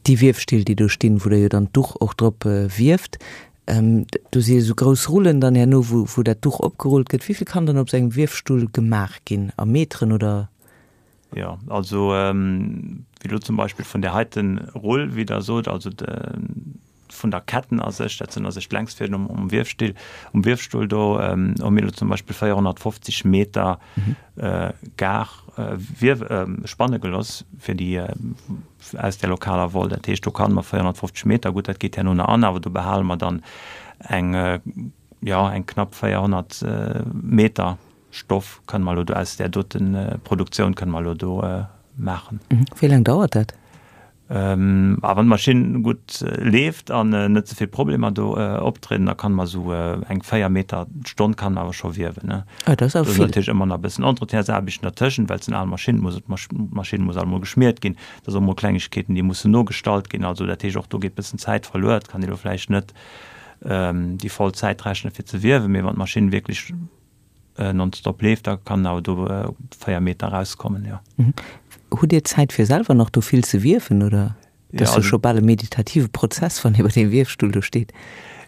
Déi Wiefstill, déi do stinn, wou Der jo dann d'Duch och drop wieft, do si jo esou grouss Rullen dann herno, wou, wou dat Duch opgerullt gëtt. Wéi vill kann dann op esou engem Wiefstull gemaach ginn? A Meteren oder? Jo, also wéi elo zum Beispill vun där heiten Rull, wéi Der sot, also de, vun der Ketten a sech, dat sinn a sech d'Längsfäden um, um Wiefstill, um Wiefstull do, hu mir elo zum Beispill 450 Meter Gar wiew, spanne geloss fir déi aus där lokaler Woll. Dat heescht, do kann mer 450 Meter, gutt, dat geet herno nach an, awer do behale mer dann eng, jo, eng knapp 400 Meter Stoff kënne mer elo do aus där dote Produktioun kënne mer elo do maachen. Wéi laang dauert dat? A wann d'Maschinn gutt leeft an net ze vill Problemer do optrieden, da kann mer esou eng 4 Meter d'Stonn kann mer awer scho wiewen. Ah, dat ass awer vill. Do ass natierlech ëmmer nach e bëssen Entretiensaarbechten dertëschent, well et sinn al Maschinnen, muss d'Maschinn muss alt emol geschmiert ginn, da si och mol Klengegkeeten, déi mussen nogestallt ginn. Also dat heescht, och do geet e bëssen Zäit verluer. Et kann ee elo vläicht net déi voll Zäit rechne fir ze wiewen, mee wann d'Maschinn wierklech. nonstop leeft, da kann awer do 4 Meter erauskommen, jo. Hutt Dir Zäit fir selwer nach do vill ze wiewen, oder? Dat ass jo scho bal e meditative Prozess, wann ee bei deem Wiefstull do steet.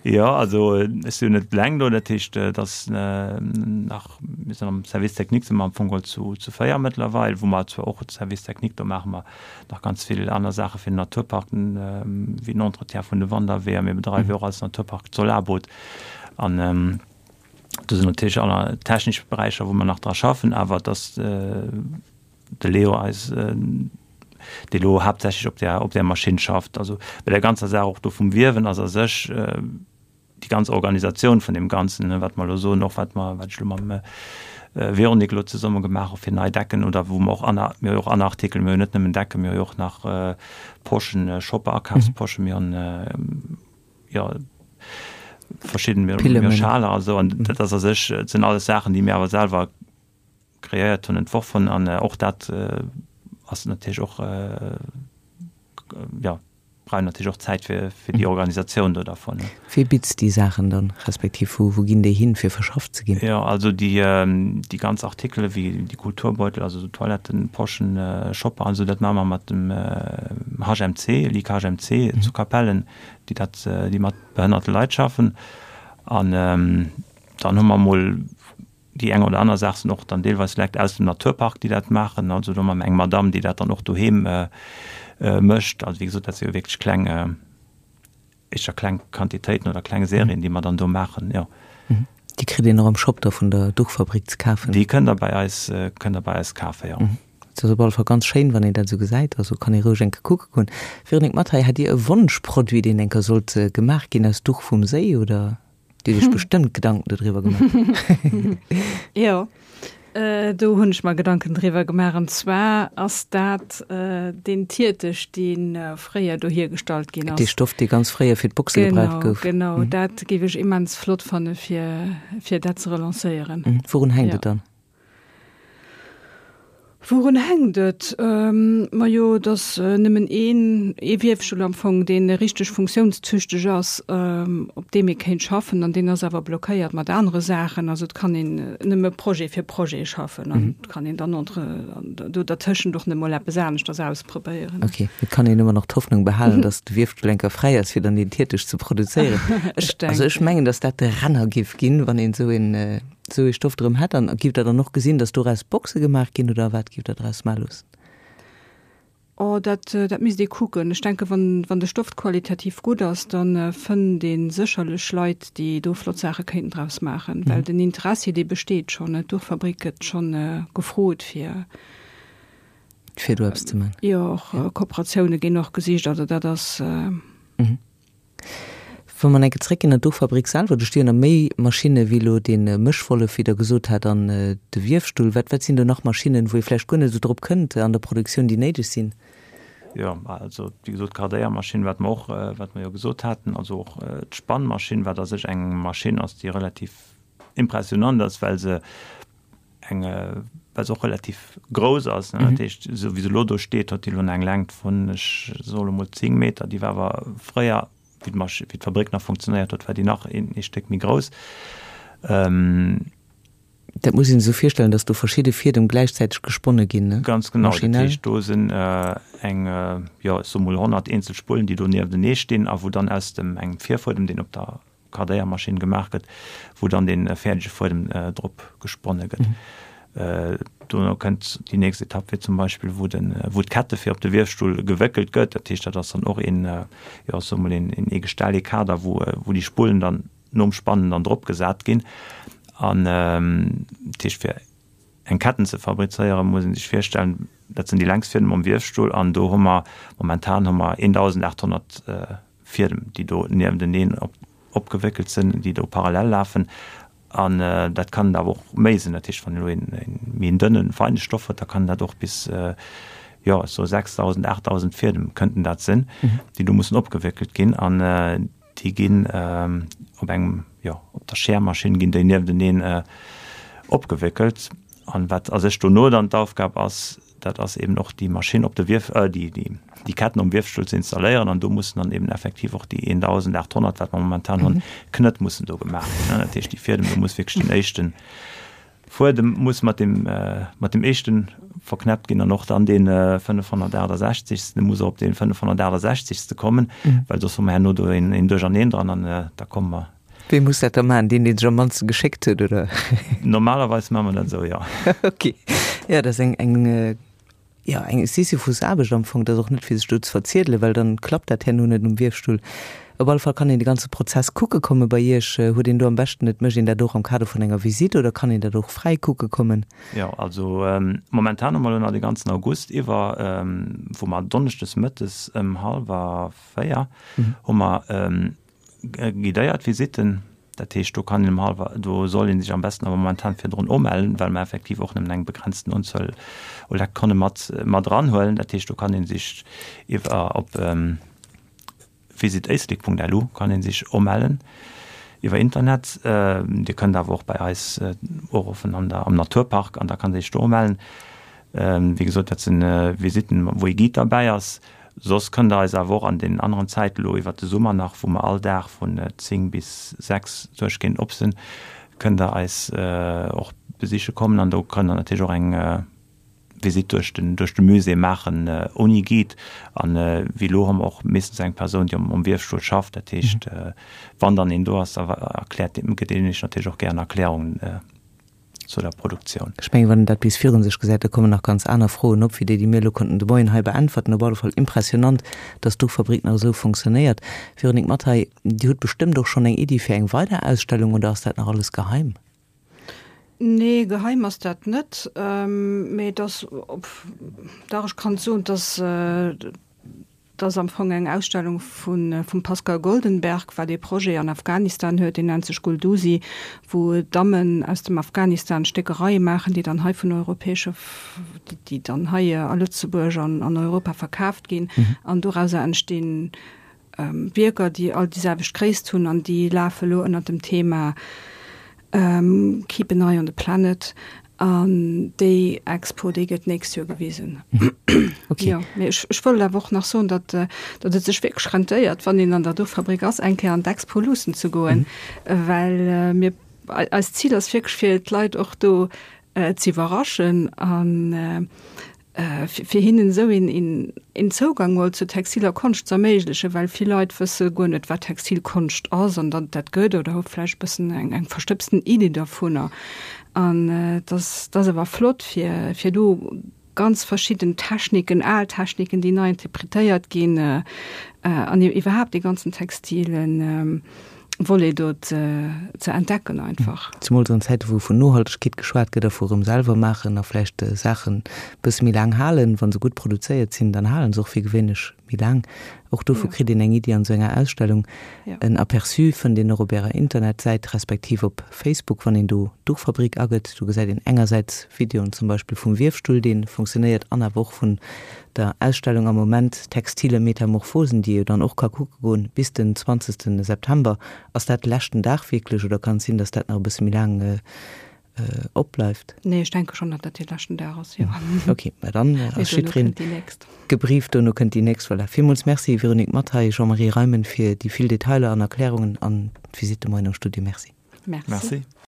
Jo, also ech sinn jo net eleng do, dat heescht, et ass nach, mir sinn am Service technique si mer am Fong geholl zu zu 4 mëttlerweil, wou mer zwar och Service technique, do maache mer nach ganz vill aner Saache fir den Naturpark, wéi den Entretien vun de Wanderweeër, mir bedreiwe jo och als Naturpark d'Solarboot an do sinn natierlech aner technesch Beräicher, wou mer nach dra schaffen, awer et ass de Leo eis, dee lo haaptsächlech op där, op där Maschinn schafft. Also bei der ganzer Saach och do vum Wiewen ass a sech déi ganz Organisatioun vun deem Ganzen, wat mer elo soen, och wat mer, wat ech elo mam Véronique elo zesumme gemaach hu fir nei Decken oder wou mer och aner, mir hu jo och aner Artikel, mir hu jo net nëmmen Decken, mir hu jo och nach Poschen, Shopper, Akafsposchen, mir hunn jo verschidden, mir hu Schaler a sou an dat ass a sech, dat sinn alles Saachen, déi mir awer selwer kreéiert hunn, entworf hunn an och dat ass natierlech och, jo, brauch natierlech och Zäit fir fir déi Organisatioun do dervun. Wee bitzt déi Saachen dann, respektiv wou wou ginn déi hin, fir verschafft ze ginn? Jo, also déi déi ganz Artikele wéi déi Kulturbeutel, also esou Toilettenposchen, Shopper an esou, dat maache mer mat dem HMC, Ligue HMC zu Capellen, déi dat, déi mat behënnerte Leit schaffen an dann hu mer emol Déi eng oder aner Saach sinn och dann deelweis Lekt aus dem Naturpark, déi dat maachen. Also do hu mer eng Madamm, déi dat dann och doheem mécht. Also wéi gesot, dat si jo wierklech kleng, éischter kleng Quantitéiten oder kleng Serien, déi mer dann do maachen, jo. Déi kritt een och am Shop da vun der Duchfabrik ze kafen? Déi kënnt Der bei eis, kënnt Der bei eis kafen, jo. Et ass op alle Fall ganz schéin, wann een dat esou gesäit. Also kann ee roueg eng Kéier kucke goen. Véronique Mathay, hat Dir e Wonschproduit, deen eng Kéier sollt gemaach ginn aus Duch vum Séi, oder? Dir hutt Iech bestëmmt Gedanken dodriwwer gemaach. Jo, do hunn ech mer Gedanken driwwer gemaach. An zwar ass dat deen Tiertech, dee fréier do hiergestallt ginn ass. Dee Stoff, dee ganz fréier fir d'Boxe gebraucht gouf. Genau, genau. Dat géif ech immens flott fanne fir, fir dat ze relancéieren. Wourun hänkt et dann? Wourun hänkt et? Majo, et ass nëmmen een, ee Wierfstull am Fong, dee richteg funktiounstüchteg ass, op deem ee kéint schaffen, an deen ass awer blockéiert mat anere Saachen. Also et kann een nëmme Projet fir Projet schaffen an et kann een dann entre do dertëschent och net mol eppes aneschters ausprobéieren. Ok, et kann een ëmmer nach d'Hoffnung behalen, datt de Wierfstull eng Kéier fräi ass, fir dann deen Tiertech ze produzéieren. Ech also ech mengen, datt dat de Renner géif ginn, wann een esou een Sou ee Stoff drëm hätt, an giff der dann och gesinn, dass doraus Boxe gemaach ginn, oder wat giff der draus maache loossen? Oh, dat, dat misst ee kucken. Ech denken, wann, wann de Stoff qualitativ gutt ass, da fënnt ee sécherlech Leit, déi do flott Saache kéinten draus maachen. Well den Interessi, dee besteet schonn. D'Duchfabrik gëtt schonn gefrot, fir. Fir do eppes ze maachen. Jo, och Kooperatioune ginn och gesicht. Also dat ass. Wa mer enke zréckginn an d'Duchfabrik selwer, do sti jo nach méi Maschinne wéi elo dee Mëschwollef, wéi Der gesot hat, an de Wiefstull. Wat, wat sinn do nach Maschinnen, wou ee vläicht guer net esou drop kënnt an der Produktioun, déi néideg sinn? Jo, also wéi gesot, d'Kardéiermaschinn, wat mer och, wat mer jo gesot haten, also och d'Spannmaschinn, wat a sech eng Maschinn ass, déi relativ impressionant ass, well se eng, well se och relativ grouss ass, ne, dat heescht, esou wéi se elo do steet, huet déi elo eng Längt vun, ech soe lo mol 10 Meter, déi war awer fréier, wéi d'Masch-, wéi d'Fabrik nach funktionéiert huet, war déi nach een ee Stéck méi grouss. Dat muss een sech esou virstellen, datt do verschidde Fiedem gläichzäiteg gesponne ginn, ne? Ganz genau, dat heescht, do sinn eng, jo, ech soe mol 100 eenzel Spullen, déi do nieftenee stinn a wou dann aus dem engem Virfuedem, deen op der Kardéiermaschinn gemaach gëtt, wou dann dee fäerdege Fuedem drop gesponne gëtt. Dono kënnt déi nächst Etapp, wéi zum Beispill wou de wou d'Kette fir op de Wiefstull gewéckelt gëtt. Dat heescht, dat ass dann och een, jo ech soe mol een ee Gestell, ee Kader, wou wou déi Spullen dann nom Spannen dann drop gesat ginn. An dat heescht fir eng Ketten ze fabrizéieren, muss ee sech virstellen, dat sinn déi längst Fiedem am Wiefstull an do hu mer momentan hu mer 1.800 Fiedem, déi do niefteneen opgewéckelt sinn, déi do parallel lafen. An dat kann awer och méi sinn. Dat heescht, wann elo een méi en dënnen, feine Stoff huet, da kann dat och bis, jo, ech soe 6.000, 8.000 Fiedem kënnten dat sinn, déi do mussen opgewéckelt ginn. An déi ginn op engem, jo, op der Schermaschinn ginn déi niefteneen opgewéckelt. An wat a sech dono dann d'Aufgab ass, dat ass eben och déi Maschinn op de Wief, déi, déi, déi Ketten um Wiefstull ze installéieren an do mussen dann eben effektiv och déi 1.800, wat mer momentan hunn, Knëtt mussen do gemaach ginn. Dat heescht, déi Fiedem, do muss wierklech den éischten. Fuedem muss mat deem, mat deem éischte verknäppt ginn an och dann dee 568. Dee muss och op dee 568. Kommen, well soss hu mer herno do een Duercherneen dran an da komme mer. Wee muss dat da maachen? Deen, dee sech am mannste geschéckt huet, oder? Normalerweis maache mer dat esou, jo. Ok. Jo, dat ass eng, eng, jo, eng Sisyphusaarbecht am Fong. Dat ass och net fir sech do ze verziedelen, well dann klappt dat herno net um Wiefstull. Op alle Fall kann een de ganze Prozess kucke komme bei Iech. Huet een do am beschten, et mécht een dat och am Kader vun enger Visitt oder kann een dat och fräi kucke kommen? Jo, also momentan hu mer elo nach de ganzen August iwwer, wou mer donneschdes mëttes ëm hallwer 4 hu mer guidéiert Visitten. Dat heescht, do kann een ëm hallwer, do soll ee sech am besten awer momentan virdrun umellen, well mer effektiv och nëmmen eng begrenzten Unzuel u Lektonne mat, mat eranhuelen. Dat heescht, do kann ee sech iwwer op visitéislek.lu kann ee sech umellen iwwer Internet. Dir kënnt awer och bei eis uruffen an der, am Naturpark an da kann ee sech do umellen. Wéi gesot, dat sinn Visitten, wou ee Guide derbäi ass. Soss kënnt der eis awer och an deenen aneren Zäiten, elo iwwert de Summer nach, wou mer all Dag vun 10 bis 6 duerchgehend op sinn, kënnt der eis och besiche kommen an do kënnt der natierlech och eng Visitt duerch den, duerch de Musée maachen ouni Guide. An wéi elo hu mer och meeschtens eng Persoun, déi um Wiefstull schafft. Dat heescht, wann dann een do ass, da erkläert deen, gëtt deen iech natierlech och gären Erklärungen. zu der Produktioun. Ech mengen, wann een dat bis virun sech gesäit, da kommen nach ganz aner Froen op, wéi déi, déi mir elo konnten de Moien hei beäntwerten. Op alle Fall impressionant, dass d'Duchfabrik nach esou fonctionnéiert. Véronique Mathay, Dir hutt bestëmmt och schonn eng Iddi fir eng weider Ausstellung, oder ass dat nach alles geheim? Nee, geheim ass dat net. Mee et ass, dach, ech kann soen, dass Et ass am Fong eng Ausstellung vum Pascal Goldenberg, wat ee Projet an Afghanistan huet, deen nennt sech Guldusi, wou Dammen aus dem Afghanistan Stéckereie maachen, déi dann hei vun europäesche, déi dann hei a Lëtzebuerg an an Europa verkaaft ginn. An dorauser entstinn Wierker, déi all déi selwecht Gréisst hunn an déi lafe lo ënner dem Thema Keep an eye on the planet. An déi Expo, déi gëtt d'nächst Joer gewisen. Okay. Jo, mee ech, ech wollt awer och nach soen, datt, datt et sech wierklech rentéiert, wann een an der Duchfabrik ass, eng Kéier an d'Expo luussen ze goen, well mir, eist Zil ass wierklech, fir d'Leit och do ze iwwerraschen an fir hinnen esou een een Zougang mol zur textiler Konscht ze erméiglechen, well vill Leit wësse guer net, wat textil Konscht ass an datt et dat gëtt oder hu vläicht e bëssen eng eng verstëbsten Iddi dovunner. An et ass, et ass awer flott, fir fir do ganz verschidden Techniken, al Techniken, déi nei interpretéiert ginn, an iwwerhaapt dee ganzen textilen Volet do ze entdecken einfach. Zemools an Zäite wou vun Nohaltegkeet geschwat gëtt a vu rëm selwer maachen a vläicht Saachen bësse méi laang halen. Wa se gutt produzéiert sinn, dann halen se och fir gewéinlech méi laang. Och dovu kritt een eng Iddi an esou enger Ausstellung. En Aperçu fënnt een och op ärer Internetsäit respektiv op Facebook, wann een do Duchfabrik agëtt. Do gesäit een engersäits Videoen zum Beispill vum Wiefstull, dee funktionéiert an awer och vun der Ausstellung am Moment Textile Metamorphosen, déi ee jo dann och ka kucke goen bis den 20 September. Ass dat de leschten Dag wierklech oder kann et sinn, datt dat nach e bësse méi laang opbleift? Nee, ech denke schonn, datt dat dee leschten Dag ass, jo. Ok, mä dann ass jiddwereen gebrieft, dono kënnt déi nächst. Voilà, villmools Merci Véronique Mathay, Jean-Marie Reimen fir déi vill Detailer an Erklärungen an d'Visite de moien am Studio. Merci. Merci.